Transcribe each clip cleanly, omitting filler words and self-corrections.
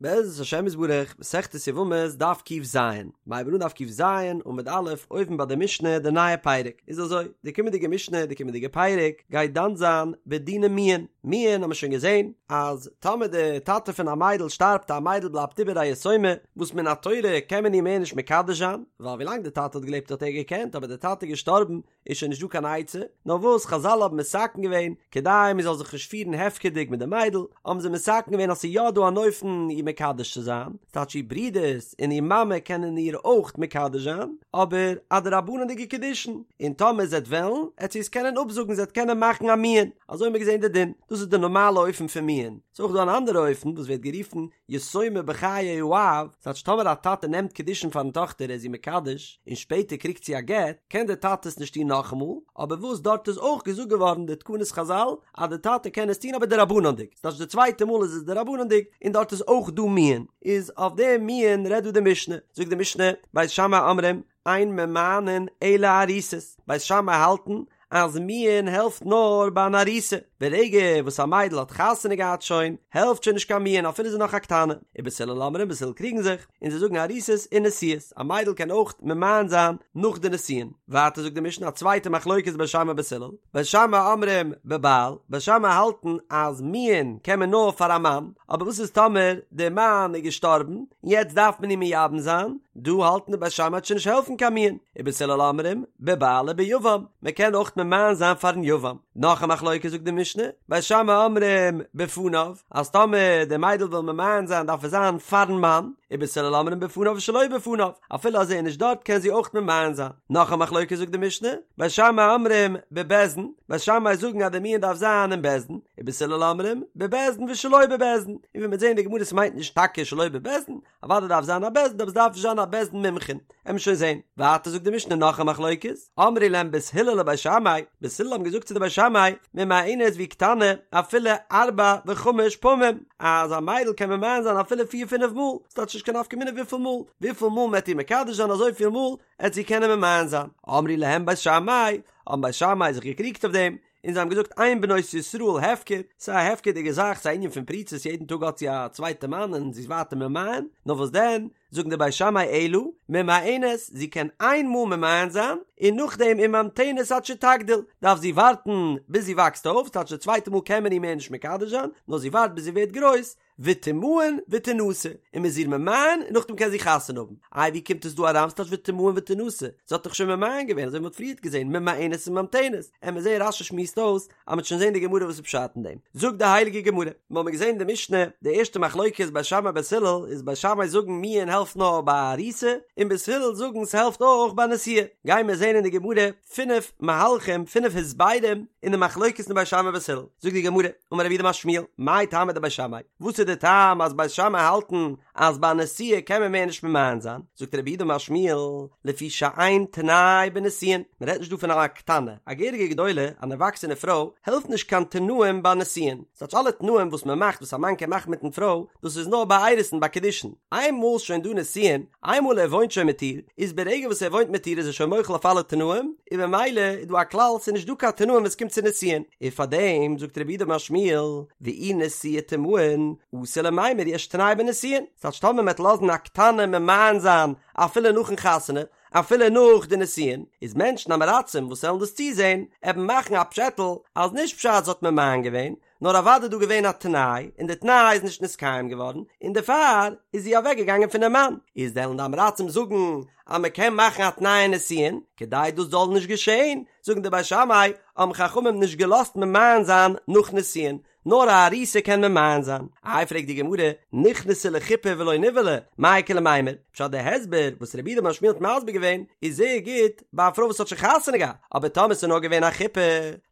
בעזרת השם יתברך, מסכת יבמות, דף ק"ז, מ'הייבן אן דף ק"ז, עמוד א', אויבן ביי די משנה, די נייע פרק, איז אזוי, די קומענדיגע משנה, די קומענדיגע פרק, גייט דן זיין בדיני מיאון, מיאון האבן מיר שוין געזען, אז טאמער די טאטע פון א מיידל שטארבט א מיידל בלייבט איבער א יתומה, וואס מן התורה קען מען איר מער נישט מקדש זיין, ווייל ווילאנג די טאטע האט געלעבט האט ער געקענט, אבער די טאטע איז געשטארבן, איז שוין נישט דא קיין עצה, נאר וואס חזל האבן מתקן געווען, כדי מען זאל זיך נישט פירן הפקר'דיג מיט די מיידל, האבן זיי מתקן געווען אז ס'איז יא דא אן אופן איר מקדש צו זיין, ס'טייטש איר ברודערס און איר מאמע קענען איר אויך מקדש זיין, אבער א דרבנן'דיגע קידושין, און טאמער זי וועט וועלן, עט זי עס קענען אפזאגן, זי עט קענען מאכן א מיאון, אזוי האבן מיר געזען די דין, דאס איז די נארמאלע אופן פון מיאון, ס'איז אויך דא אן אנדערע אופן וואס ווערט גערופן יתומה בחיי האב, ס'טייטש טאמער א טאטע נעמט קידושין פארן טאכטער ער איז איר מקדש, און שפעטער קריגט זי א גט, קען דער טאטע עס נישט טון נאכאמאל, אבער וואס דארט איז אויך געזאגט געווארן די תקנות חזל אז די טאטע קען עס טון אבער דרבנן'דיג, ס'טייטש די צווייטע מאל איז עס דרבנן'דיג און דארט איז אויך דא מיאון, איז אויף דעם מיאון רעדט דא די משנה, זאגט די משנה, בית שמאי אומרים, אין ממאנין אלא ארוסות, בית שמאי האלטן אז מיאון העלפט נאר ביי אן ארוסה, ברגע וואס א מיידל האט חתונה געהאט שוין, העלפט שוין נישט קיין מיאון אפילו זי איז נאך א קטנה, ובית הלל אומרים בית הלל קריגן זיך, און זיי זאגן ארוסות ונשואות, א מיידל קען אויך ממאן זיין נאך די נישואין. ווייטער זאגט די משנה א צווייטע מחלוקת בית שמאי בית הלל, בית שמאי אומרים בבעל, בית שמאי האלטן אז מיאון קען מען נאר פאר א מאן, אבער וואס איז טאמער די מאן איז געשטארבן און יעצט דארף מען אים מייבם זיין, דא האלטן די בית שמאי וועט שוין נישט העלפן קיין מיאון, ובית הלל אומרים בבעל וביבם, מען קען אויך ממאן זיין פארן יבם. נאך א מחלוקת זאגט די משנה, בית שמאי אומרים בפניו, אז טאמער די מיידל וויל ממאן זיין דארף עס זיין פארן מאן, ובית הלל אומרים בפניו ושלא בפניו, אפילו אז ער איז נישט דארט קען זי אויך ממאן זיין. נאך א מחלוקת זאגט די משנה, בית שמאי אומרים בבית דין, בית שמאי זאגן אז די מיאון דארף זיין אין בית דין, ובית הלל אומרים בבית דין ושלא בבית דין, און ווי מ'וועט זען אין די גמרא ס'מיינט נישט טאקע שלא בבית דין, אוודאי דארף זיין א בית דין אבער ס'דארף נישט זיין א בית דין מומחים, עמיר שוין זען. ווייטער זאגט די משנה נאך א מחלוקת, אמרו להם בית הלל לבית שמאי, בית הלל האבן געזאגט צו די בית שמאי, ממאנת והיא קטנה אפילו ארבע וחמש פעמים, אז א מיידל קען ממאן זיין אפילו פיר פינף מאל, ס'טייטש נישט קיין נפקא מינה וויפיל מאל, וויפיל מאל מ'עט איר מקדש זיין אזויפיל מאל עט זי קענען ממאן זיין. אמרו להם בית שמאי, האבן בית שמאי זיך געקריגט אויף דעם, און זיי האבן געזאגט אין בנות ישראל הפקר, ס'איז א הפקר'דיגע זאך, ס'איז א ענין פון פריצות, יעדן טאג האט זי א צווייטע מאן און זי איז ווייטער ממאן, נאר וואס דען, זאגן די בית שמאי אלא ממאנת, זי קען איין מאל ממאן זיין, און נאכדעם וממתנת עד שתגדיל, דארף זי ווארטן ביז זי וואקסט אויף, ס'טייטש די צווייטע מאל קען מען איר מער נישט מקדש זיין, נאר זי ווארט ביז זי ווערט גרויס, ותמאן ותנשא, און מ'איז איר ממאן און נאכדעם קען זי חתונה האבן. איי ווי קומט עס דא אריין ס'טייטש ותמאן ותנשא? זי האט דאך שוין ממאן געווען אזוי ווי מ'האט פריערט געזען ממאנת און ממתנת. עמיר זעהן רש"י שמועסט אויס אז מ'וועט שוין זעהן די גמרא וואס איז פשט אין דעם. זאגט די הייליגע גמרא, מ'האמיר געזען די משנה, די ערשטע מחלוקת בית שמאי בית הלל איז בית שמאי זאגן מיאון העלפט נאר ביי ארוסה, און בית הלל זאגן ס'העלפט אויך ביי נשואה. גיימיר זעהן אין די גמרא פינף מהלכים, פינף הסברים אין די מחלוקת אין בית שמאי בית הלל. זאגט די גמרא, אמר רב יהודה אמר שמואל, מאי טעמא דבית שמאי? וואס איז די טעם אז בית שמאי האלטן אז ביי נשואה קען מען מער נישט ממאן זיין? זאגט רב יהודה אמר שמואל, לפי שאין תנאי בנישואין, מען רעדט נישט דא פון א קטנה, א געהעריגע גדולה, אן ערוואקסענע פרוי, העלפט נישט קיין תנאים ביי נישואין, ס'טייטש אלע תנאים וואס מען מאכט וואס א מאן קען מאכן מיטן פרוי, דאס איז נאר ביי אירוסין ביי קידושין, איינמאל שוין דא נישואין, איינמאל ער וואוינט שוין מיט איר, איז ברגע וואס ער וואוינט מיט איר איז ער שוין מוחל אויף אלע תנאים, און במילא איז דא א כלל ס'איז נישט דא קיין תנאים ווען ס'קומט צו נישואין, און פארדעם זאגט רב יהודה אמר שמואל, ואי נשואה תמאן, אתי למימר יש תנאי בנישואין, ס'טייטש טאמער מ'עט לאזן א קטנה ממאן זיין אפילו נאכן חתונה, אפילו נאך די נישואין, איז מענטשן עם הארצים וואס וועלן דאס צוזען, עבן מאכן א פשעטל אז נישט פשט זי האט ממאן געווען, נאר אוודאי דא געווען א תנאי, און די תנאי איז נישט נתקיים געווארן, און דערפאר איז זי אוועק געגאנגען פונעם מאן, איז וועלן די עם הארצים זאגן אז מען קען מאכן א תנאי אין נישואין, כדי דאס זאל נישט געשען, זאגן די בית שמאי, האבן חכמים נישט געלאזט ממאן זיין נאך נישואין, נאר א ארוסה קען ממאן זיין. איי פרעגט די גמרא, נכנסה לחופה ולא נבעלה, מאי איכא למימר? פשט די הסבר וואס רב יהודה אמר שמואל האט מסביר געווען איז זייער גוט ביי א פרוי וואס האט שוין חתונה געהאט, אבער טאמער ס'איז נאר געווען א חופה,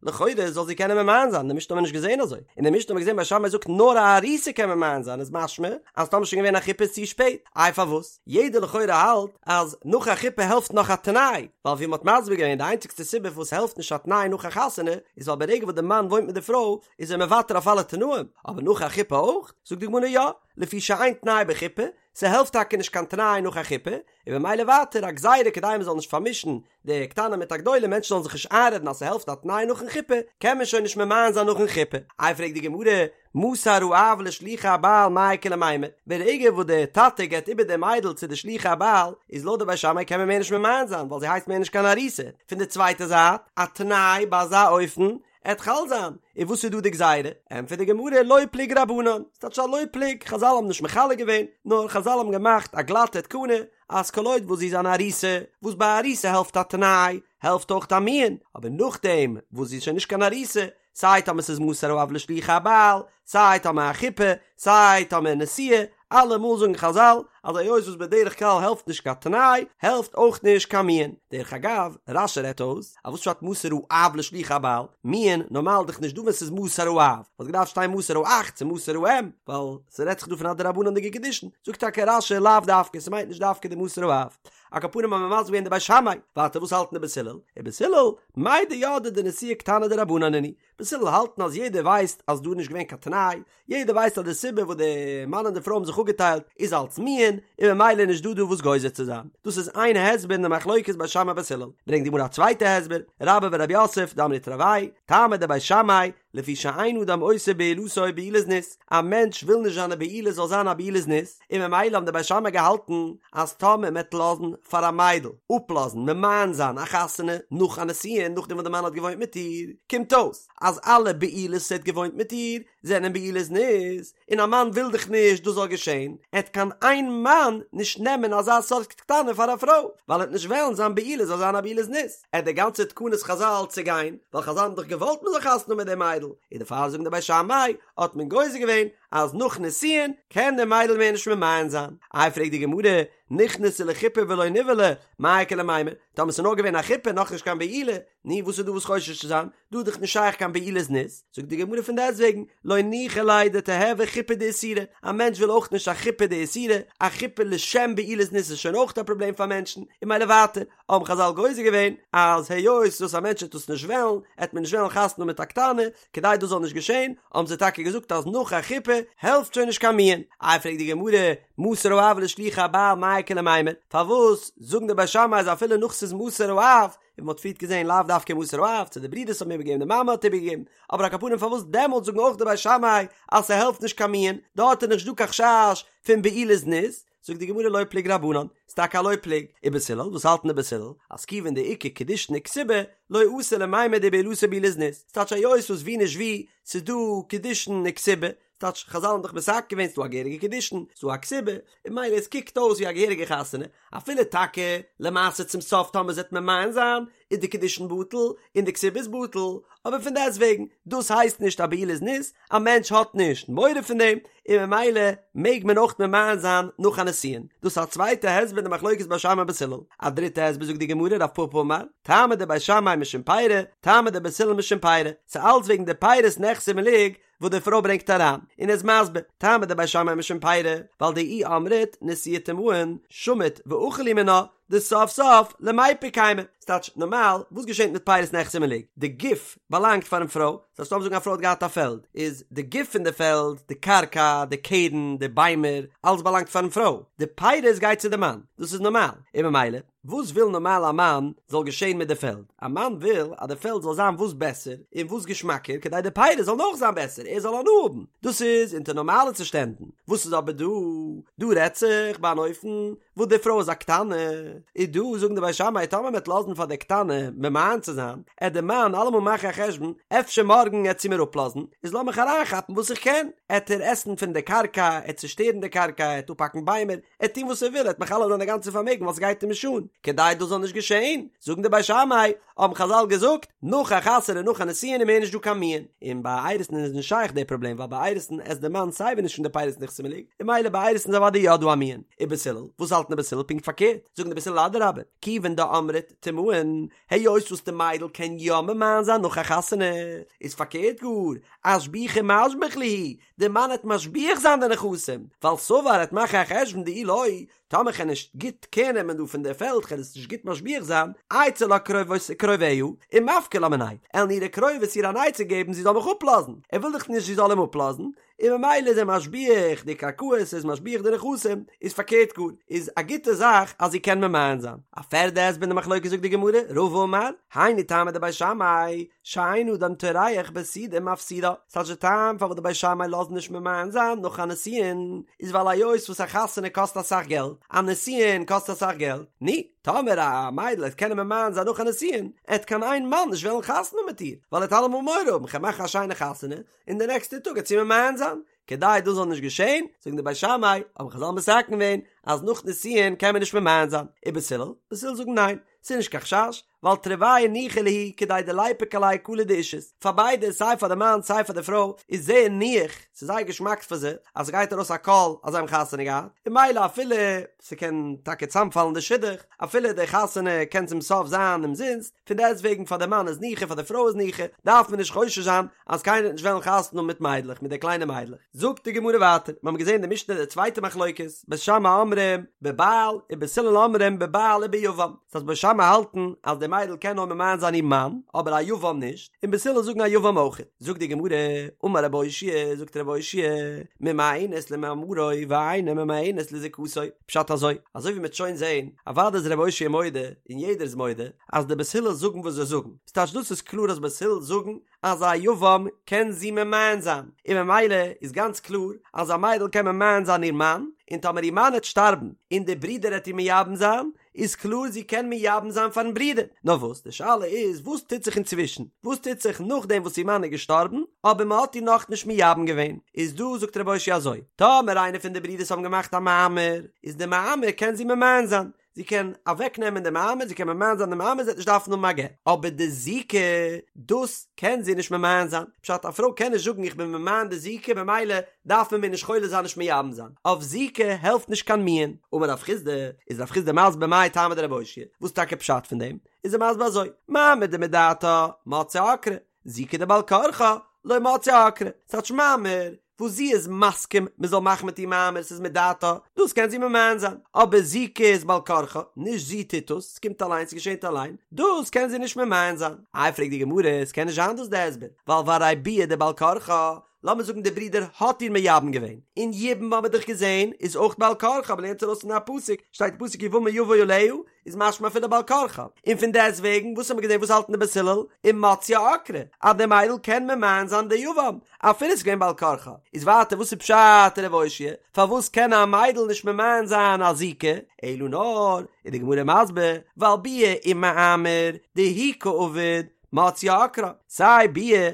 לכאורה זאל זי קענען ממאן זיין, די משנה האט מען נישט געזען אזוי, אין די משנה האט מען געזען בית שמאי זאגט נאר א ארוסה קען ממאן זיין איז משמע אז טאמער שוין געווען א חופה איז צו שפעט, איי פארוואס? יעדער לכאורה האלט אז נאך א חופה העלפט נאך א תנאי, ווייל ווי מ'האט מסביר געווען די איינציגסטע סיבה פארוואס ס'העלפט נישט א תנאי נאך א חתונה איז ווייל ברגע וואס די מאן וואוינט מיט די פרוי איז ער מוותר אויף אלע תנאים, אבער נאך א חופה אויך? זאגט די גמרא יא, לפי שאין תנאי בחופה, ס'העלפט טאקע נישט קיין תנאי נאך א חופה, און במילא ווייטער א גזירה כדי מ'זאל נישט פארמישן די קטנה מיט א גדולה מענטשן זאלן זיך נישט איינרעדן אז ס'העלפט א תנאי נאכן חופה, קען מען שוין נישט ממאן זיין נאכן חופה. איי פרעגט די גמרא, מסר האב לשלוחי הבעל מאי איכא למימר, ברגע וואס די טאטע געבט איבער די מיידל צו די שלוחי הבעל, איז לויט די בית שמאי קען מען מער נישט ממאן זיין ווייל זי הייסט מער נישט קיין ארוסה, פון די צווייטע זייט, א תנאי ביי אזא אופן עט חל זיין, און וואס איז דא די גזירה? ענטפערט די גמרא לא פלוג רבנן, ס'טייטש א לא פלוג, חזל האבן נישט מחלק געווען, נאר חזל האבן געמאכט א גלאטע תקנה, אז כל עוד וואס זי איז אן ארוסה, וואס ביי ארוסה העלפט א תנאי, העלפט אויך א מיאון, אבער נאכדעם וואס זי איז שוין נישט קיין ארוסה, סיי טאמער ס'איז מסר האב לשלוחי הבעל, סיי טאמער א חופה, סיי טאמער נשואה, אלעמאל זאגן חזל אז היות וואס בדרך כלל העלפט נישט קיין תנאי, העלפט אויך נישט קיין מיאון. דרך אגב, רש"י רעדט אויס, אז וואס פשט מסר האב לשלוחי הבעל? מיאון, נארמאל דאך נישט דא ווען ס'איז מסר האב, וואלט געדארפט שטיין מסר האח צו מסר האם, ווייל ס'רעדט זיך דא פון א דרבנן'דיגע קידושין. זאגט טאקע רש"י לאו דווקא, ס'מיינט נישט דווקא די מסר האב. על כל פנים האבן מיר מסביר געווען די בית שמאי, ווייטער וואס האלטן די בית הלל? ובית הלל, מידע ידעי דנשואה קטנה דרבנן נינהו, בית הלל האלטן אז יעדער ווייסט אז דא איז נישט געווען קיין תנאי, יעדער ווייסט אז די סיבה וואס די מאן און די פרוי האבן זיך אפגעטיילט איז אלץ מיאון, און ממילא איז נישט דא דא וואס גוזר צו זיין. דאס איז איין הסבר אין די מחלוקת בית שמאי בית הלל. ברענגט די גמרא א צווייטע הסבר, רבה ורב יוסף דאמרי תרוייהו, טעמא דבית שמאי, לפי שאין אדם עושה בעילתו בעילת זנות, א מענטש וויל נישט זיינע בעילה זאל זיין א בעילת זנות, און ממילא האבן די בית שמאי געהאלטן אז טאמער מ'עט לאזן פאר א מיידל אפלאזן ממאן זיין א חתונה נאך א נישואין נאכדעם וואס די מאן האט געוואוינט מיט איר, קומט אויס אז אלע בעילות וואס ער האט געוואוינט מיט איר זענען בעילות זנות, און א מאן וויל דאך נישט דאס זאל געשען, עט קיין איין מאן נישט נעמען אזא סארט קטנה פאר א פרוי, ווייל ער עט נישט וועלן זיין בעילה זאל זיין א בעילת זנות, עט די גאנצע תקנת חזל צעגיין, ווייל חזל האבן דאך געוואלט מען זאל חתונה האבן מיט די מיידל, און דערפאר זאגן די בית שמאי האט מען גוזר געווען אז נאך נישואין קען די מיידל מער נישט ממאן זיין. איי פרעגט די גמרא, נכנסה לחופה ולא נבעלה, מאי איכא למימר, טאמער ס'איז נאר געווען א חופה נאכנישט קיין בעילה, נו וואס איז דא וואס חושש צו זיין, דא איז דאך נישט שייך קיין בעילת זנות, זאגט די גמרא פון דעסטוועגן, לא ניחא ליה דתיהוי חופה דאיסורא, א מענטש וויל אויך נישט א חופה דאיסורא, א חופה לשם בעילת זנות איז שוין אויך א פראבלעם פאר מענטשן, און ממילא ווייטער, האבן חזל גוזר געווען אז היות וואס א מענטש וועט דאס נישט וועלן, עט מען נישט וועלן חתונה האבן מיט א קטנה, כדי דאס זאל נישט געשען, האבן זיי טאקע געזאגט אז נאך א חופה העלפט שוין נישט קיין מיאון. איי פרעגט די גמרא, מסר האב לשלוחי הבעל מאי איכא למימר, פארוואס זאגן די בית שמאי אז אפילו נאך ס'איז מסר האב, און מ'האט פריערט געזען לאו דווקא מסר האב, צו די ברידערס האבן איבערגעגעבן די מאמע האט איבערגעגעבן, אבער על כל פנים פארוואס דעמאלטס זאגן אויך די בית שמאי אז ס'העלפט נישט קיין מיאון, דארט איז נישט דא קיין חשש פון בעילת זנות, זאגט די גמרא לא פלוג רבנן, ס'טאקע א לא פלוג, ובית הלל, וואס האלטן די בית הלל? אז כיוון דאיכא קידושין וכתובה, לא אתי למימר דבעילתו בעילת זנות, ס'טייטש היות וואס ווי נישט ווי, ס'איז דא קידושין וכתובה, ס'טייטש חזל האבן דאך מתקן געווען ס'דא א געהעריגע קידושין, ס'דא א כתובה, און ממילא עס קוקט אויס ווי א געהעריגע חתונה, אפילו טאקע למעשה צום סוף טאמער זי וועט ממאן זיין, איז די קידושין בטל און די כתובה איז בטל, אבער פון דעסטוועגן, דאס הייסט נישט א בעילת זנות, א מענטש האט נישט מורא פון דעם, און ממילא מעג מען אויך ממאן זיין נאך א נישואין. דאס איז א צווייטע הסבר אין די מחלוקת בית שמאי בית הלל. א דריטע הסבר זאגט די גמרא רב פפא אמר, טעמא דבית שמאי משום פירי, טעמא דבית הלל משום פירי, ס'איז אלץ וועגן די פירות נכסי מלוג וואס די פרוי ברענגט אריין, און ער איז מסביר, טעמא דבית שמאי משום פירי, ווייל דאי אמרת נשואה תימהון, שמיט ואכיל להו מינה, דסוף סוף למיפק קיימא. ס'טייטש, נארמאל, וואס געשענט מיט פירות נכסי מלוג? די גוף באלאנגט פארן פרוי, ס'הייסט לאמיר זאגן א פרוי האט געהאט א פעלד, איז די גוף פון די פעלד, די קרקע, די קרן, די ביימער, אלעס באלאנגט פארן פרוי, די פירות גייט צו די מאן, דאס איז נארמאל, און ממילא, וואס וויל נארמאל א מאן זאל געשען מיט די פעלד? א מאן וויל אז די פעלד זאל זיין וואס בעסער און וואס געשמאקער כדי די פירות זאלן אויך זיין בעסער, ער זאל הנאה האבן. דאס איז אונטער נארמאלע צושטענדן. וואס איז אבער דא? דא רעדט זיך ביי אן אופן וואס די פרוי איז א קטנה, איז דא זאגן די בית שמאי טאמער מען וועט לאזן פאר די קטנה ממאן צו זיין, עט די מאן אלעמאל מאכן א חשבון אפשר מארגן עט זי מיר אפלאזן, איז לאמיך אריינכאפן וואס איך קען, עט ער עסן פון די קרקע, עט צושטערן די קרקע, עט אפהאקן ביימער, עט טון וואס ער וויל, עט מכלה זיין די גאנצע פארמעגן ווייל ס'גייט אים נישט אן, כדי דאס זאל נישט געשען, זאגן די בית שמאי, האבן חזל געזאגט, נאך א חתונה נאך א נישואין איז מער נישט דא קיין מיאון, און ביי אירוסין איז נישט שייך די פראבלעם ווייל ביי אירוסין עסט די מאן סייווי נישט פון די פירות נכסי מלוג, און ממילא ביי אירוסין איז אוודאי יא דא א מיאון. ובית הלל, וואס האלטן די בית הלל פונקט פארקערט? זאגן די בית הלל אדרבה, כיוון דאמרת תימהון, היות וואס די מיידל קען יא ממאן זיין נאך א חתונה, איז פארקערט גאר, אשבוחי משביח להו, די מאן עט משביח זיין די נכסים, ווייל סבר עט מאכן א חשבון דאי לא, טאמער כ'על נישט גוט קער נעמען דא פון די פעלד כ'על עס נישט גוט משביח זיין, אייתי לה קרוביה ומפקי לה מינאי, עלן אירע קרובות איר אן עצה געבן זי זאל מיך אפלאזן, ער וויל דאך נישט זי זאל אים אפלאזן, און ממילא איז ער משביח די קרקעות, ער איז משביח די נכסים, איז פארקערט גאר, איז א גוטע זאך אז זי קען ממאן זיין. א פערדע הסבר אין די מחלוקת זאגט די גמרא, רבא אמר, היינו טעמא דבית שמאי, שאין אדם טורח בסעודה ומפסידה, ס'טייטש די טעם פארוואס די בית שמאי לאזן נישט ממאן זיין נאך א נישואין, איז ווייל היות וואס א חתונה קאסט אסאך געלט, א נישואין קאסט אסאך געלט, נו, טאמער א מיידל עט קענען ממאן זיין נאך א נישואין, עט קיין איין מאן נישט וועלן חתונה מיט איר, ווייל ער עט אלעמאל מורא האבן, כ'על מאכן א שיינע חתונה, און די נעקסטע טאג עט זי ממאן זיין. כדי דאס זאל נישט געשען, זאגן די בית שמאי, האבן חזל מתקן געווען, אז נאך נישואין קען מען נישט ממאן זיין. ובית הלל, בית הלל זאגן ניין, ס'איז נישט קיין חשש, ווייל תרוייהו ניחא להו כדי דליפוק עלייהו קלא דאישות, פאר ביידע סיי פאר די מאן סיי פאר די פרוי איז זייער ניח, ס'איז זייער געשמאק פאר זיי אז ס'גייט ארויס א קול אז זיי האבן חתונה געהאט, און ממילא אפילו ס'קען טאקע צאמפאלן די שידוך, אפילו די חתונה קען צום סוף זיין אומזינסט, פון דעסטוועגן פאר די מאן איז ניחא פאר די פרוי איז ניחא, דארף מען נישט חושש זיין אז קיינער וועט נישט וועלן חתונה האבן מיט מיידלעך, מיט די קליינע מיידלעך. זאגט די גמרא ווייטער, מיר האבן געזען די משנה די צווייטע מחלוקת, בית שמאי אומרים בבעל ובית הלל אומרים בבעל וביבם, ס'הייסט בית שמאי האלטן אז די מיידל קען נאר ממאן זיין איר מאן, אבער א יבם נישט, און בית הלל זאגן א יבם אויך. זאגט די גמרא, אמר רב אושעיא, זאגט רב אושעיא, ממאנת למאמרו ואינה ממאנת לזיקתו, פשט אזוי, אזוי ווי מ'וועט שוין זען, אוודאי איז רב אושעיא מודה, און יעדער איז מודה, אז די בית הלל זאגן וואס זיי זאגן, ס'טייטש דאס איז קלאר אז בית הלל זאגן אז א יבם קען זי ממאן זיין, און ממילא איז גאנץ קלאר אז א מיידל קען ממאן זיין איר מאן, און טאמער איר מאן העט שטארבן און די ברודער העט איר מייבם זיין, איז קלאר זי קען מייבם זיין פארן ברודער. נאר וואס, די שאלה איז וואס טוט זיך אינצווישן, וואס טוט זיך נאכדעם וואס איר מאן איז געשטארבן אבער מען האט איר נאכנישט מייבם געווען, איז דא זאגט רב אושעיא אזוי, טאמער איינער פון די ברודערס האבן געמאכט א מאמר, איז די מאמר קען זי ממאן זיין, זי קען אוועק נעמען די מאמר, זי קען ממאן זיין די מאמר, זי וועט נישט דארפן האבן א גט, אבער די זיקה, דאס קען זי נישט ממאן זיין, פשט א פרוי קען נישט זאגן איך בין ממאן די זיקה במילא דארף מען מיר נישט חולץ זיין נישט מייבם זיין, אויף זיקה העלפט נישט קיין מיאון. אמר רב חסדא, איז רב חסדא מסביר מאי טעמא דרב אושעיא, וואס טאקע פשט פון דעם, איז ער מסביר אזוי, מאמר דמדעתה מציא עקרה, זיקה דבעל כרחה לא מציא עקרה, ס'טייטש מאמר וואס זי איז מסכים מען זאל מאכן מיט איר מאמר ס'איז מדעתה, דאס קען זי ממאן זיין, אבער זיקה איז בעל כרחה, נישט זי טוט עס, ס'קומט אליין ס'געשענט אליין, דאס קען זי נישט ממאן זיין. איי פרעגט די גמרא, ס'קען נישט זיין דאס די הסבר, ווייל והרי ביאה דבעל כרחה, לאמיר זאגן די ברודער האט איר מייבם געווען, און יבום האבן מיר דאך געזען איז אויך בעל כרחה, מ'לערנט ארויס פון א פסוק, שטייט אין פסוק יבמה יבא עליה, איז משמע אפילו בעל כרחה, און פון דעסט וועגן וואס האבן מיר געזען וואס האלטן די בית הלל ומציא עקרה אז די מיידל קען ממאן זיין די יבם אפילו ס'איז געווען בעל כרחה, איז ווייטער וואס איז פשט רב אושעיא פארוואס קען א מיידל נישט ממאן זיין א זיקה, אלא נאר איז די גמרא מסביר ווייל ביאה ומאמר דהוא קא עביד מציא עקרה, סיי ביאה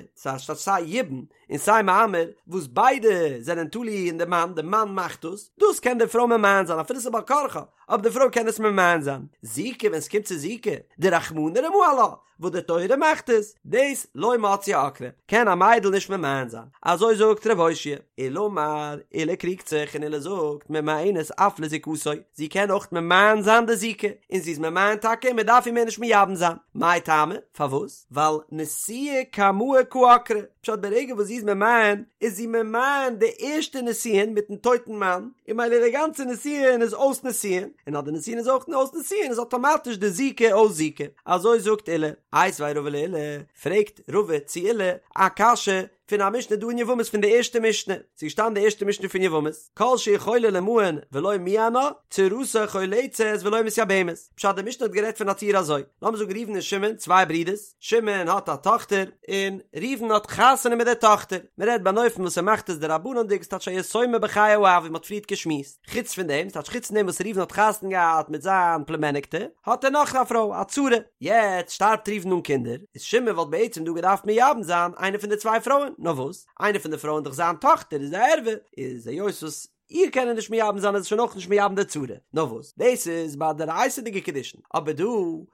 סיי יבום און סיי מאמר, וואס ביידע זענען תלוי אין די מאן, די מאן מאכט דאס, דאס קען די פרוי ממאן זיין אפילו ס'איז בעל כרחה, אבער די פרוי קען עס ממאן זיין. זיקה, ווען ס'קומט צו זיקה, דרחמנא רמא עלה, וואס די תורה מאכט עס, דאס לא מציא עקרה, קען א מיידל נישט ממאן זיין. אזוי זאגט ר' אושעיא. עולא אמר, עולא קריגט זיך און עולא זאגט, ממאנת אף לזיקתו, זי קען אויך ממאן זיין די זיקה, און זי איז ממאן טאקע און מ'דארף איר מער נישט מייבם זיין. מאי טעמא? פארוואס? ווייל נישואי קמאי קא עקרה, פשט ברגע וואס זי איז ממאן איז זי ממאן די ערשטע נישואין מיטן טויטן מאן, און ממילא די גאנצע נישואין איז אויס נישואין, און אז די נישואין איז אויך אויס נישואין איז אטאמאטיש די זיקה אויס זיקה, אזוי זאגט עולא. איתיביה רבא לעולא, פרעגט רבא צו עולא א קשיא פון א משנה דא אין יבמות פון די ערשטע משנה, ס'איז געשטאנען די ערשטע משנה פון יבמות, כל שיכולה למאן ולא מיאנה, צרתה חולצת ולא מתייבמת, פשט די משנה האט גערעדט פון א ציור אזוי, לאמיר זאגן ראובן און שמעון צוויי ברידערס, שמעון האט א טאכטער, און ראובן האט חתונה מיט די טאכטער, מען רעדט ביי אן אופן וואס ער מאכט עס דרבנן'דיג, ס'טייטש א יתומה בחיי האב ווי מען האט פריערט געשמועסט. חוץ פון דעם, ס'טייטש חוץ פון דעם וואס ראובן האט חתונה געהאט מיט זיין פלומעניקטע, האט ער נאך א פרוי, א צרה. יעצט שטארבט ראובן אן קינדער, איז שמעון וואלט בעצם דא געדארפט מייבם זיין איינע פון די צוויי פרויען, נאר וואס, איינע פון די פרויען דאך זיין טאכטער איז א ערווה, איז היות וואס איר קען ער נישט מייבם זיין איז ער שוין אויך נישט מייבם די צרה, נאר וואס, דאס איז ביי דאורייתא'דיגע קידושין, אבער דא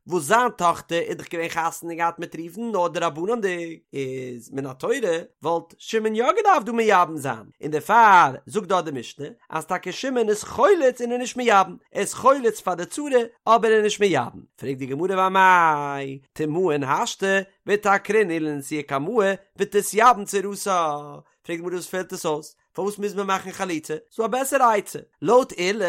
וואס זיין טאכטער איז דאך געווען חתונה געהאט מיט ראובן נאר דרבנן'דיג, איז מן התורה וואלט שמעון יא געדארפט דא מייבם זיין, און דערפאר זאגט דארט די משנה אז טאקע שמעון איז חולץ און איז נישט מייבם, ער איז חולץ פאר די צרה אבער ער איז נישט מייבם, פרעגט די גמרא ואמאי תימאן השתא ותעקרינהו לנישואי קמאי ותתייבם צרתה, פרעגט די גמרא וואס פעלט עס אויס, פארוואס מוז מען מאכן חליצה, ס'דא א בעסערע עצה, לויט עולא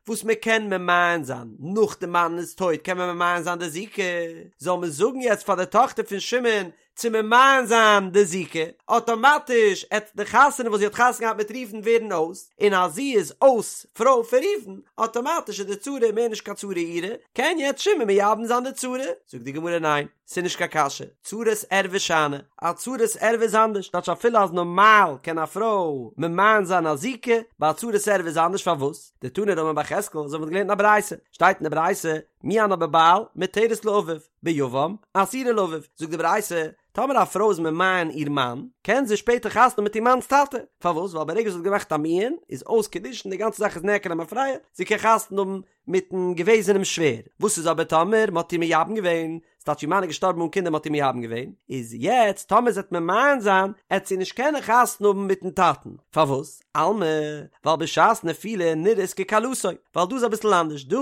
וואס מען קען ממאן זיין נאך די מאן איז טויט קען מען ממאן זיין די זיקה, זאל מען זאגן יעצט פאר די טאכטער פון שמעון. צו ממאן זיין די זיקה, אטאמאטיש עט די חתונה וואס זי האט חתונה געהאט מיט ראובן ווערן אויס, און אז זי איז אויס פרוי פון ראובן, אטאמאטיש איז די צרה מער נישט קיין צרה אירע, קען יעצט שמעון מייבם זיין די צרה? זאגט די גמרא ניין, ס'איז נישט קיין קשיא, צרת ערווה שאני, א צרת ערווה איז אנדערש, טייטש אפילו אז נארמאל קען א פרוי ממאן זיין א זיקה, ביי א צרת ערווה איז אנדערש פארוואס? דתני רמי בר יחזקאל, אזוי ווי מ'האט געלערנט אין א ברייתא, שטייט אין די ברייתא, מיאנה בבעל, מותרת לאביו, ביבם, אסורה לאביו, זאגט די ברייתא, טאמער א פרוי איז ממאן איר מאן, קען זי שפעטער חתונה האבן מיט איר מאנ'ס טאטע, פארוואס? ווייל ברגע זי האט געמאכט א מיאון, איז אויס קידושין, די גאנצע זאך איז נעקר למפרע, זי קען חתונה האבן מיט'ן געוועזענעם שווער. וואס איז אבער טאמער מ'האט איר מייבם געווען, ס'טייטש איר מאן איז געשטארבן אן קינדער מ'האט איר מייבם געווען, איז יעצט טאמער זי וועט ממאן זיין, עט זי נישט קענען חתונה האבן מיט'ן טאטן, פארוואס? אלמא, ווייל בשעת נפילה נראית ככלתו, ווייל דא איז אביסל אנדערש, דא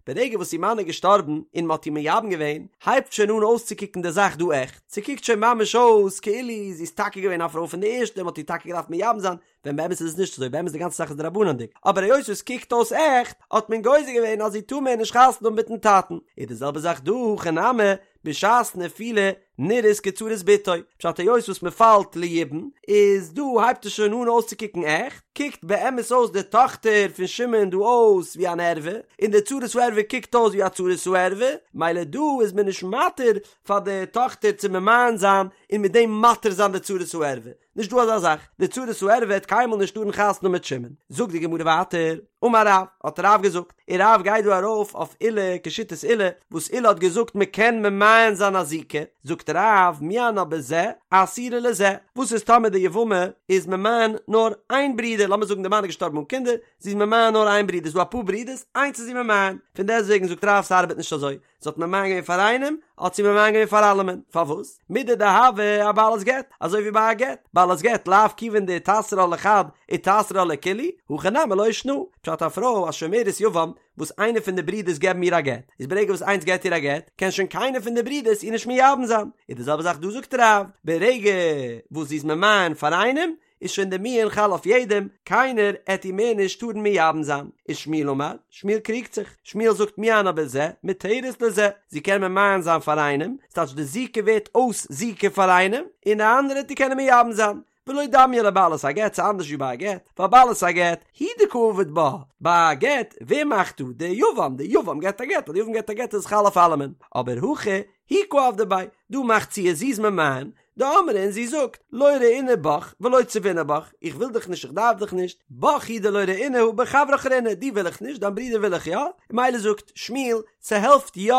ברגע וואס איר מאן איז געשטארבן און מ'האט איר מייבם געווען, הייבט שוין אן אויסצוקוקן די זאך דא עכט, ס'קוקט שוין ממש אויס כאילו זי איז טאקע געווען א פרוי פון די ערשטע און מ'האט איר טאקע געדארפט מייבם זיין, ווען באמת איז עס נישט אזוי, באמת די גאנצע זאך איז דרבנן'דיג, אבער היות עס קוקט אויס עכט, האט מען גוזר געווען אז זי טאר מער נישט חתונה האבן מיט'ן טאטן. איז די זעלבע זאך דא, הכא נמי, בשעת נפילה נראית כצרת בתו, פשט היות וואס מען פאלט ליבום, איז דא הייבט עס שוין אן אויסצוקוקן עכט, קוקט באמת אויס די טאכטער פון שמעון דא אויס ווי אן ערווה, און די צרת הערווה קוקט אויס ווי א צרת הערווה, מילא דא איז מען נישט מתיר פאר די טאכטער צו ממאן זיין און מיט דעם מתיר זיין די צרת הערווה. נישט דא אזא זאך, די צרת הערווה וועט קיינמאל נישט טארן חתונה האבן מיט שמעון. זאגט די גמרא ווייטער, אמר רב, האט רב געזאגט, און רב גייט דא ארויף אויף עולא כשיטת עולא, וואס עולא האט געזאגט מען קען ממאן זיין א זיקה, זאגט רב, מיאנה בזה, אסורה לזה, וואס איז טאמער די יבמה איז ממאן נאר איין ברודער, לאמיר זאגן די מאן איז געשטארבן אן קינדער, זי איז ממאן נאר איין ברודער, ס'איז דא אפאר ברודערס, איינס איז זי ממאן, פון דעסטוועגן זאגט רב ס'ארבעט נישט אזוי, זי האט ממאן געווען פאר איינעם, האט זי ממאן געווען פאר אלעמען. פארוואס? מידי דהוה אבעלת גט, אזוי ווי ביי א גט, בעלת גט לאו כיוון דאיתסרא לחד איתסרא לכולהו, הכא נמי לא שנא. פשט א פרוי א שומרת יבם וואס איינער פון די ברידערס געבן איר א גט, איז ברגע וואס איינס געבט איר א גט, קען שוין קיינער פון די ברידערס איר נישט מייבם זיין. איז די זעלבע זאך דא זאגט רב, ברגע וואס זי איז ממאן פאר איינעם, איז שוין די מיאון חל אויף יעדעם, קיינער עט איר מער נישט טארן מייבם זיין. ושמואל אמר, שמואל קריגט זיך, שמואל זאגט מיאנה בזה, מותרת לזה, זי קען ממאן זיין פאר איינעם, ס'טייטש די זיקה ווערט אויס זיקה פאר איינעם, און די אנדערע עט איר קענען מייבם זיין. ולא דמיא לבעלת הגט, ס'איז אנדערש ווי ביי א גט, ווייל בעלת הגט, הוא דקא עביד בה, ביי א גט, ווער מאכט דא? די יבם, די יבם געבט א גט, אז די יבם געבט א גט איז עס חל אויף אלעמען, אבער הכא, היא קא עבדא ביה, דא מאכט זי עס, זי איז ממאן, דאמרה און זי זאגט, לא רעינא בך ולא צבינא בך, איך וויל דיך נישט איך דארף דיך נישט, בך הוא דלא רעינא הא בחברך רעינא, דיר וויל איך נישט, דיין ברודער וויל איך יא, און מילא זאגט שמואל, ס'העלפט יא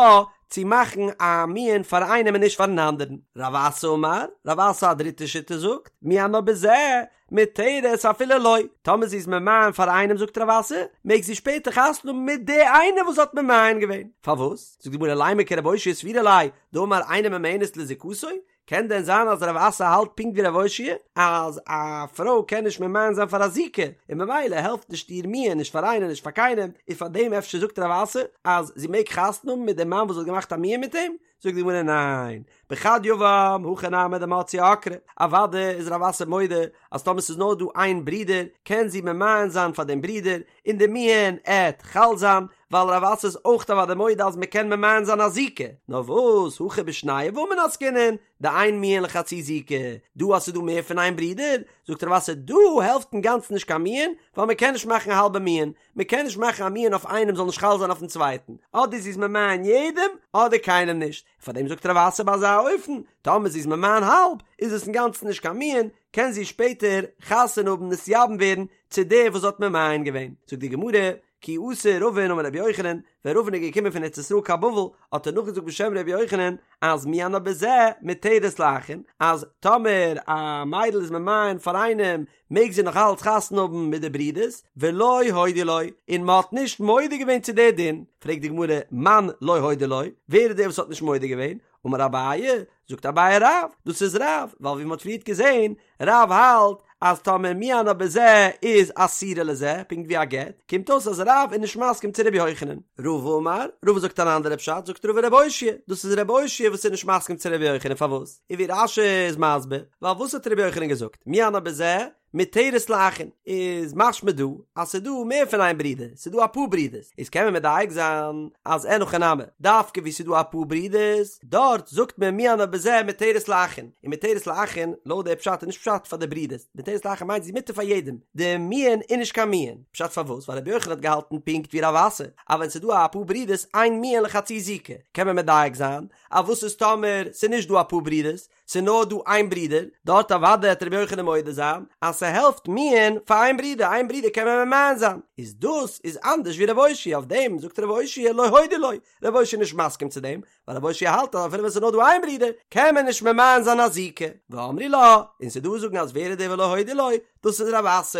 צו מאכן א מיאון פאר איינעם און נישט פארן אנדערן. רב אסי אמר, רב אסי א דריטע שיטה זאגט, מיאנה בזה, מותרת אפילו לו, טאמער זי איז ממאן פאר איינעם זאגט רב אסי, מעג זי שפעטער חתונה האבן מיט די איינער וואס האט ממאן געווען, פארוואס? זאגט די גמרא לימא כרב אושעיא סבירא ליה, דאמר אינה ממאנת לזיקתו, קען דען זיין אז רב אסי האלט פונקט ווי רב אושעיא אז א פרוי קען נישט ממאן זיין פאר א זיקה, און ממילא העלפט נישט איר מיאון נישט פאר איינעם נישט פאר קיינעם, און פאר דעם אפשר זאגט רב אסי אז זי מעג חתונה האבן מיט דעם מאן וואס האט געמאכט א מיאון מיט אים? זאגט די גמרא ניין, בחד יבם הכי נמי דמציא עקרה, אוודאי איז רב אסי מודה אז טאמער ס'איז נאר דא איין ברודער קען זי ממאן זיין פאר דעם ברודער און די מיאון עט חל זיין, ווייל רב אסי איז אויך אוודאי מודה אז מ'קען ממאן זיין א זיקה, נאר וואס הכא בשני יבמין עסקינן, דאין מיאון לחצי זיקה, דא אז ס'איז דא מער פון איין ברודער, זאגט רב אסי דא העלפט אינגאנצן נישט קיין מיאון, ווייל מ'קען נישט מאכן א האלבע מיאון, מען קען נישט מאכן א מיאון אויף איינעם זאל נישט חל זיין אויפן צווייטן, אדער זי איז ממאן יעדעם אדער קיינעם נישט, און פאר דעם זאגט רב אסי ביי אזא אופן, טאמער זי איז ממאן האלב, איז עס אינגאנצן נישט קיין מיאון, קען זי שפעטער חתונה האבן נתייבם ווערן צו דער וואס האט ממאן געווען. זאגט די גמרא, כי אתא רבין אמר רבי יוחנן, ווען רבין איז געקומען פון ארץ ישראל קיין בבל, האט ער נאכגעזאגט בשם רבי יוחנן, אז מיאנה בזה מותרת לאחין, אז טאמער א מיידל איז ממאן פאר איינעם מעג זי נאך אלץ חתונה האבן מיט די ברודערס, ולא הודו לו, און מען האט נישט מודה געווען צו די דין, פרעגט די גמרא, מאן לא הודו לו, ווער איז דער וואס האט נישט מודה געווען, אמר אביי, זאגט אביי רב, דאס איז רב, ווייל ווי מען האט פריערט געזען, רב האלט אז טאמער מיאנה בזה איז אסורה לזה, פונקט ווי א גט, קומט אויס אז רב איז נישט מסכים צו רבי יוחנן. רבא אמר, רבא זאגט אן אנדערע פשט, זאגט רבא רבי אושעיא, דאס איז רבי אושעיא וואס איז נישט מסכים צו רבי יוחנן, פארוואס? און ווי רש"י איז מסביר, ווייל וואס האט רבי יוחנן געזאגט, מיאנה בזה, מותרת לאחין, איז משמע דא אז ס'איז דא מער פון איין ברודער, ס'איז דא אפאר ברודערס, איז קען מען מדייק זיין אז אין הכי נמי, דווקא וואו ס'איז דא אפאר ברודערס, דארט זאגט מען מיאנה בזה מותרת לאחין, און מותרת לאחין, לויט די פשט איז נישט פשט פאר די ברודערס, מותרת לאחין מיינט זי איז מותר פאר יעדעם, די מיאון איז נישט קיין מיאון, פשט פארוואס? ווייל רבי יוחנן האט געהאלטן פונקט ווי רב אסי, אז ווען ס'איז דא אפאר ברודערס אין מיאון לחצי זיקה, קען מען מדייק זיין אז וואס איז טאמער ס'איז נישט דא אפאר ברודערס, ס'איז נאר דא איין ברודער, דארט אוודאי העט רבי יוחנן מודה זיין אז ס'העלפט מיאון פאר איין ברודער, איין ברודער קען מען ממאן זיין, איז דאס איז אנדערש ווי רב אושעיא, אויף דעם זאגט רב אושעיא לא הודו לו, רב אושעיא איז נישט מסכים צו דעם, ווייל רב אושעיא האלט אז אפילו ווען ס'איז נאר דא איין ברודער קען מען נישט ממאן זיין א זיקה, ואמרי לה, און ס'איז דא וואס זאגן אז ווער איז דער ולא הודו לו, דאס איז רב אסי,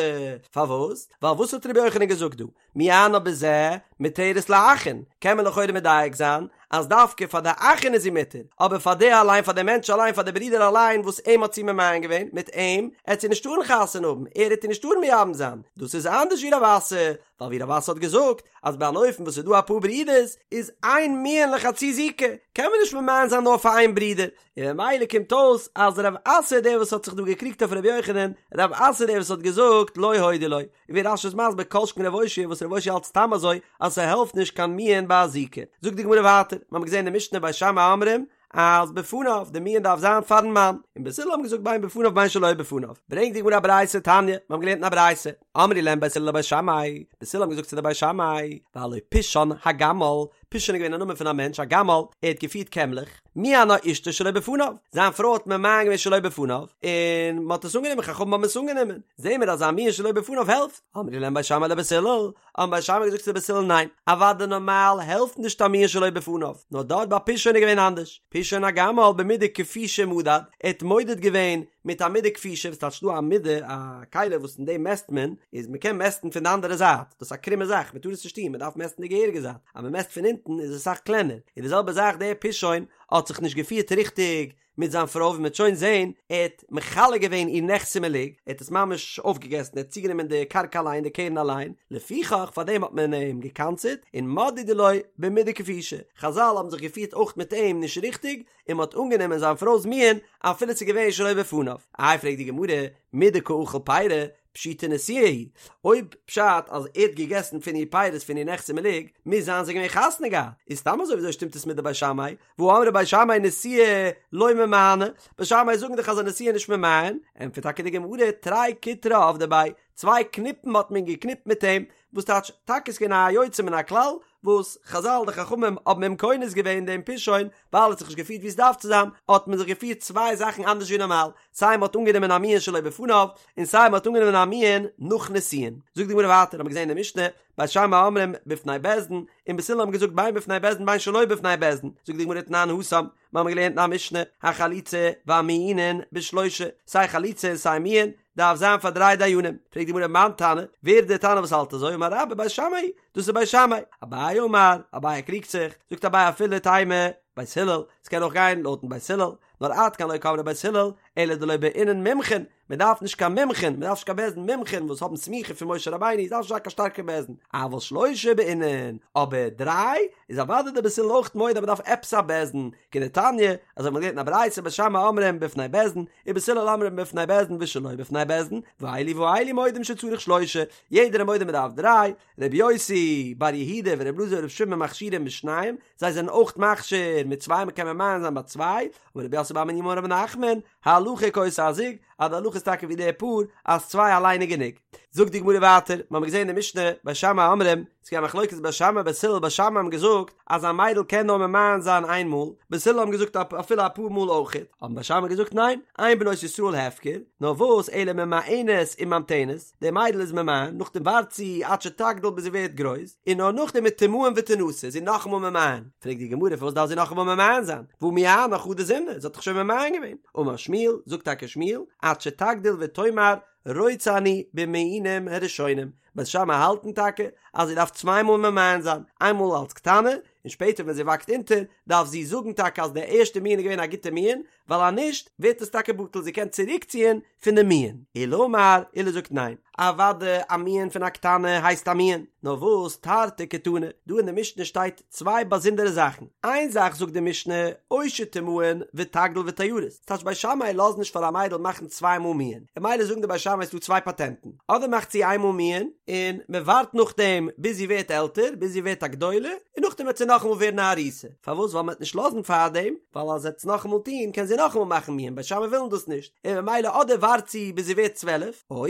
פארוואס? ווייל וואס האט רבי יוחנן געזאגט דא? מיאנה בזה מותרת לאחין, קען מען לכאורה מדייק זיין אז דווקא פאר די אחין איז זי מותר, אבער פאר די אליין פאר די מענטש אליין פאר די ברודער אליין וואס אים האט זי ממאן געווען מיט אים עט זי נישט טארן חתונה האבן ער עט איר נישט טארן מייבם זיין, דאס איז אנדערש ווי רב אסי, ווייל ווי רב אסי האט געזאגט אז ביי אן אופן וואס איז דא אפאר ברודערס איז אין מיאון לחצי זיקה קען מען נישט ממאן זיין נאר פאר איין ברודער, און ממילא קומט אויס אז רב אסי איז דער וואס האט זיך דא געקריגט אויף רבי יוחנן, רב אסי איז דער וואס האט געזאגט לא הודו לו, און ווי רש"י איז מסביר כל שכן רב אושעיא וואס רב אושעיא האלט סתם אזוי אז ס'העלפט נישט קיין מיאון ביי א זיקה. זאגט די גמרא ווייטער, מ'האמיר געזען אין די משנה בית שמאי אומרים אז בפניו, די מיאון דארף זיין פארן מאן, און בית הלל האבן געזאגט בין בפניו בין שלא בפניו, ברענגט די גמרא א ברייתא תניא, מ'האמיר געלערנט אין א ברייתא, אמרו להם בית הלל לבית שמאי, בית הלל האבן געזאגט צו די בית שמאי, והלא פישון הגמל, פישון איז געווען א נאמען פון א מענטש א גמל, ער האט געפירט קעמלעך, מיאנה אשתו שלא בפניו, זיין פרוי האט ממאן געווען שלא בפניו, און מען האט עס אנגענומען, חכמים האבן עס אנגענומען, זעהן מיר אז א מיאון שלא בפניו העלפט, אמרו להם בית שמאי לבית הלל, האבן בית שמאי געזאגט צו בית הלל ניין, אוודאי נארמאל העלפט נישט א מיאון שלא בפניו, נאר דארט ביי פישון איז געווען אנדערש, פישון הגמל במידה כפישה מדד, ער האט מודד געווען מיט א מידה כפישה, וואס טייטש דא א מידה, א כלי וואס אין דעם מעסט מען, איז מען קען מעסטן פון די אנדערע זייט, דאס איז א קרומע זאך, מען טאר עס נישט טון, מען דארף מעסטן די געהעריגע זייט, אז מען מעסט פון אונטן איז עס אסאך קלענער, און די זעלבע זאך דער פישון האט זיך נישט געפירט ריכטיג מיט זיין פרוי ווי מען וועט שוין זען, ער האט מכלה געווען איר נכסי מלוג, ער האט עס ממש אויפגעגעסן, ער האט צוגענומען די קרקע אליין, די קרן אליין, לפיכך פאר דעם האט מען אים גע'קנס'עט, און מדדו לו במידה כפישה, חזל האבן זיך געפירט אויך מיט אים נישט ריכטיג, און מען האט אנגענומען זיין פרוי'ס מיאון אפילו ס'איז געווען שלא בפניו. איי פרעגט די גמרא, מדקא אכיל פירי, פשיטא נשואה היא, אויב פשט אז ער האט געגעסן פון איר פירות פון איר נכסי מלוג, מוז זיין זיי געווען חתונה געהאט, איז סתם אזוי וויאזוי שטימט עס מיט די בית שמאי, והא אמרי בית שמאי נשואה לא ממאנה, בית שמאי זאגן דאך אז א נשואה איז נישט ממאן, ענטפערט טאקע די גמרא, תרי קיטרי עבדי ביה, צוויי קניפן האט מען געקניפט מיט אים, וואס טייטש, טאקע איז געווען א יוצא מן הכלל, וואס חזל די חכמים האבן אים קונס געווען דעם פישון, ווייל ער האט זיך נישט געפירט ווי עס דארף צו זיין, האט מען זיך געפירט צוויי זאכן אנדערש ווי נארמאל, סיי מען האט אנגענומען א מיאון שלא בפניו, און סיי מען האט אנגענומען א מיאון נאך נישואין. זאגט די גמרא ווייטער, האט מען געזען אין די משנה, בית שמאי אומרים בפני בית דין, און בית הלל האבן געזאגט בין בפני בית דין בין שלא בפני בית דין, זאגט די גמרא תנן התם, מיר האבן געלערנט אין א משנה, החליצה והמיאונין בשלושה, סיי חליצה און סיי מיאון, דארף זיין פאר דריי דיינים, פרעגט די גמרא מאן תנא, ווער איז דער תנא וואס האלט אזוי, אמר רבה בית שמאי, דאס איז בית שמאי, אביי אמר, אביי קריגט זיך, זאגט אביי אפילו תימא, בית הלל, ס'קען אויך גיין לויטן בית הלל, נאר עד כאן לא קאמרי בית הלל, אלא דלא בעינן מומחין, מען דארף נישט קיין מומחין, מען דארף נישט קיין בית דין מומחין וואס האבן סמיכה פון משה רבינו, עס דארף נישט זיין קיין שטארקע בית דין, אבל שלושה בעינן, אבער דריי, איז אוודאי די בית הלל אויך מודה אז מען דארף עפעס א בית דין, כדתניא, אזוי ווי מען האט געלערנט אין א ברייתא בית שמאי אומרים בפני בית דין, ובית הלל אומרים בפני בית דין ושלא בפני בית דין, ואלו ואלו מודים שצריך שלושה, יעדער איז מודה מען דארף דריי, רבי יוסי בר יהודה ורבי אלעזר ברבי שמעון מכשירים בשניים, זיי זענען אויך מכשיר מיט צוויי מען קען ממאן זיין ביי צוויי, אמר רב יוסף בר מניומי אמר רב נחמן, הלכה כאותו הזוג, אז די הלכה איז טאקע ווי די פאר, אז צוויי אליין איז גענוג. זאגט די גמרא ווייטער, מיר האבן געזען אין די משנה, בית שמאי אומרים, ס'איז געווען א מחלוקת בית שמאי בית הלל, בית שמאי האבן געזאגט אז א מיידל קען נאר ממאן זיין איין מאל, בית הלל האבן געזאגט אפילו אפאר מאל אויכעט, האבן בית שמאי געזאגט ניין, אין בנות ישראל הפקר, נאר וואס אלא ממאנת וממתנת, די מיידל איז ממאן, נאכדעם ווארט זי עד שתגדיל ביז זי ווערט גרויס, און נאר נאכדעם ותמאן ותנשא, איז זי נאכאמאל ממאן. פרעגט די גמרא פארוואס דארף זי נאכאמאל ממאן זיין, והא מיאנה חדא זימנא, זי האט דאך שוין ממאן געווען. אמר שמואל, זאגט טאקע שמואל, עד שתגדיל ותאמר רוצה אני במיאונים הראשונים, בית שמאי האלטן טאקע אז זי דארף צוויי מאל ממאן זיין, איינמאל אלס קטנה, און און שפעטער ווען זי וואקסט אונטער דארף זי זאגן טאקע אז די ערשטע מיאון איז געווען א גוטע מיאון, ווייל אז נישט ווערט עס טאקע בטל, זי קען צוריקציען פון די מיאון. עולא אמר, עולא זאגט ניין, אוודאי א מיאון פון א קטנה הייסט א מיאון, נאר וואס תרתי קתני, דא אין די משנה שטייט צוויי באזונדערע זאכן, איין זאך זאגט די משנה, או שתמאן ותגדיל ותארס, ס'טייטש בית שמאי לאזן נישט פאר א מיידל מאכן צוויי מאל מיאון, און ממילא זאגן די בית שמאי ס'דא צוויי פאטענטן, אדער מאכט זי איין מאל מיאון, און מען ווארט נאכדעם ביז זי ווערט עלטער, ביז זי ווערט א גדולה, און נאכדעם וועט זי נאכאמאל ווערן א ארוסה, פארוואס ווייל מען וועט נישט לאזן פארדעם, ווייל אז זי וועט עס נאכאמאל טון קען זי נאכאמאל מאכן מיאון, בית שמאי ווילן דאס נישט, און ממילא אדער ווארט זי ביז זי ווערט 12, או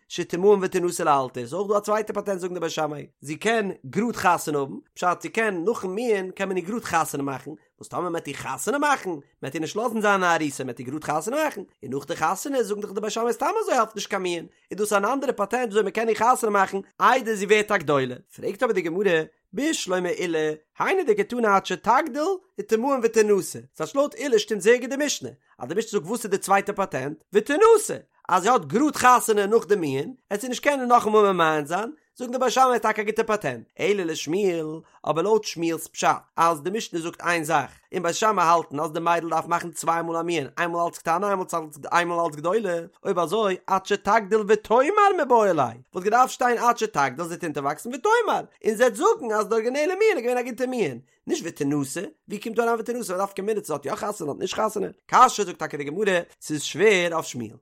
שתמאן ותנשא לאלתר, איז אויך דא א צווייטע פאטענט זאגן די בית שמאי, זי קען גראד חתונה האבן, פשט זי קען נאכן מיאון קען מען איר גראד חתונה מאכן, וואס טאמער מ'עט איר חתונה מאכן, מ'עט איר נישט לאזן זיין א ארוסה, מ'עט איר גראד חתונה מאכן, און נאך די חתונה זאגן דאך די בית שמאי סתם אזוי העלפט נישט קיין מיאון, איז דאס אן אנדערע פאטענט וויאזוי מ'קען איר חתונה מאכן איידער זי ווערט א גדולה. פרעגט אבער די גמרא, בשלמא עולא, היינו דקתני עד שתגדיל ותמאן ותנשא, ס'טייטש לויט עולא שטימט זייער גוט די משנה, אז די משנה זאגט וואס איז די צווייטע פאטענט, ותנשא, אז זי האט גראד חתונה נאך די מיאון, עט זי נישט קענען נאכאמאל ממאן זיין, זאגן די בית שמאי איז טאקע א גוטע פאטענט, אלא לשמואל, אבער לויט שמואל'ס פשט אז די משנה זאגט איין זאך, און בית שמאי האלטן אז די מיידל דארף מאכן צוויי מאל א מיאון, איינמאל אלץ קטנה איינמאל אלץ גדולה, אויב אזוי עד שתגדיל ותאמר מיבעי ליה, וואלט געדארפט שטיין עד שתגדיל זי וועט אונטערוואקסן ותאמר, און זי וועט זאגן אז די ארגינעלע מיאון איז געווען א גוטע מיאון, נישט ותנשא, ווי קומט דא אריין ותנשא, נפקא מינה צו זי האט יא חתונה אדער נישט חתונה? קשיא זאגט טאקע די גמרא, ס'איז שווער אויף שמואל.